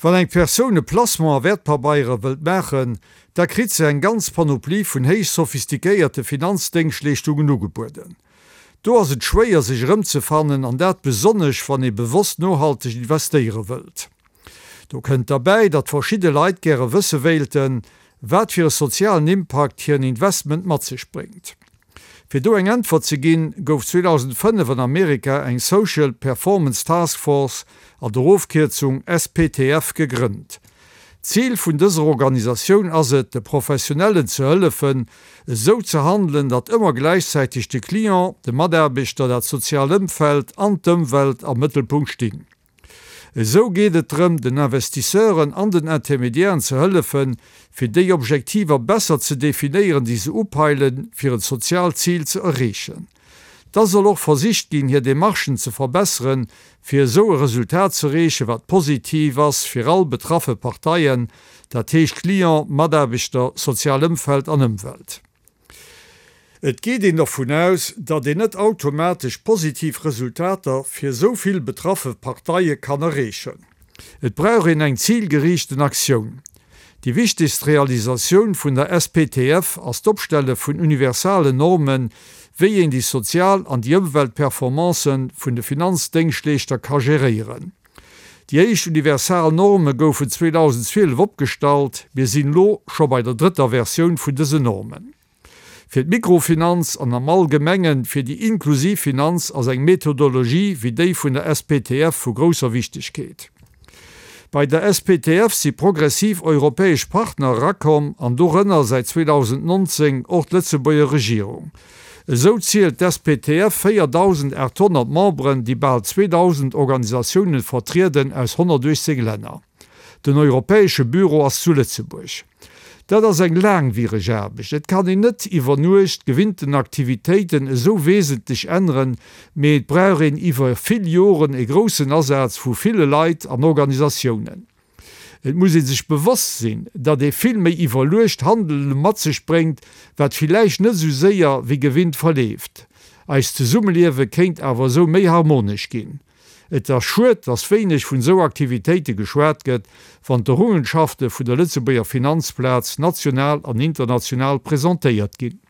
Wann eng Persoun e Placement a Wäertpabeiere wëllt maachen, da kritt se eng ganz Panoplie vun héich sophistiquéierte Finanzdéngschtleeschtungen ugebueden. Do ass et schwéier sech erëmzefannen, an dat besonnesch wann ee bewosst nohalteg investéiere wëllt. Do kënnt derbäi, datt verschidde Leit gäre wësse wéilten, wat fir e sozialen Impakt hiren Investment mat sech bréngt. Fir do eng Äntwert ze ginn, gouf 2005 an Amerika eng Social Performance Task Force, an der Ofkierzung SPTF, gegrënnt. Zil vun dëser Organisatioun ass et, de Professionellen ze hëllefen, esou ze handelen, datt ëmmer gläichzäiteg de Client, de Mataarbechter, dat soziaalt Ëmfeld an d'Ëmwelt am Mëttelpunkt stinn. Esou geet et drëm, den Investisseuren an den Intermédiairen ze hëllefen, fir déi Objektiver besser ze definéieren, déi se upeilen, fir en soziaalt Zil ze erreechen. Da soll och versicht ginn, hir Demarchen ze verbesseren, fir esou e Resultat ze erreechen, wat positiv ass fir all betraffe Parteien, dat heescht Client, Mataarbechter, sozial Ëmfeld an Ëmwelt. Et geet een dervun aus, datt een net automatesch positiv Resultater fir esou vill betraffe Parteie kann erreechen. Et brauch een eng zilgeriichten Aktioun. Déi wichtegst Realisatioun vun der SPTF ass d'Opstelle vun universalen Normen, wéi een déi sozial an déi Ëmweltperformancen vun de Finanzdéngschtleeschter ka geréieren. Déi éischt universal Norme goufen 2012 opgestallt, mir sinn elo scho bei der drëtter Versioun vun dësen Normen. Fir d'Mikrofinanz an am Allgemengen fir déi inklusiv Finanz ass eng Methodologie wéi déi vun der SPTF vu grousser Wichtegkeet. Bei der SPTF si progressiv europäesch Partner erakomm an dorënner säit 2019 och d'Lëtzebuerger Regierung. Esou zielt d'SPTF 4.800 Memberen, déi bal 2.000 Organisatiounen vertrieden aus 118 Länner. Den europäesche Büro ass zu Lëtzebuerg. Dat ass eng laangwiereg Aarbecht. Et kann een net iwwer Nuecht gewinnten Aktivitéiten esou wesentlech änneren, mee et brauch een iwwer vill Joren e groussen Asaz vu ville Leit an Organisatiounen. Et muss ee sech bewosst sinn, datt ee vill méi iwwerluecht Handele mat sech bréngt, wat villäicht net esou séier wéi gewinnt verleeft. Eist Zesummeliewe kéint awer esou méi harmonesch ginn. Et ass schued, datt wéineg vun esou Aktivitéite geschwat gëtt, wann d'Errungenschafte vun der Lëtzebuerger Finanzplaz national an international presentéiert ginn.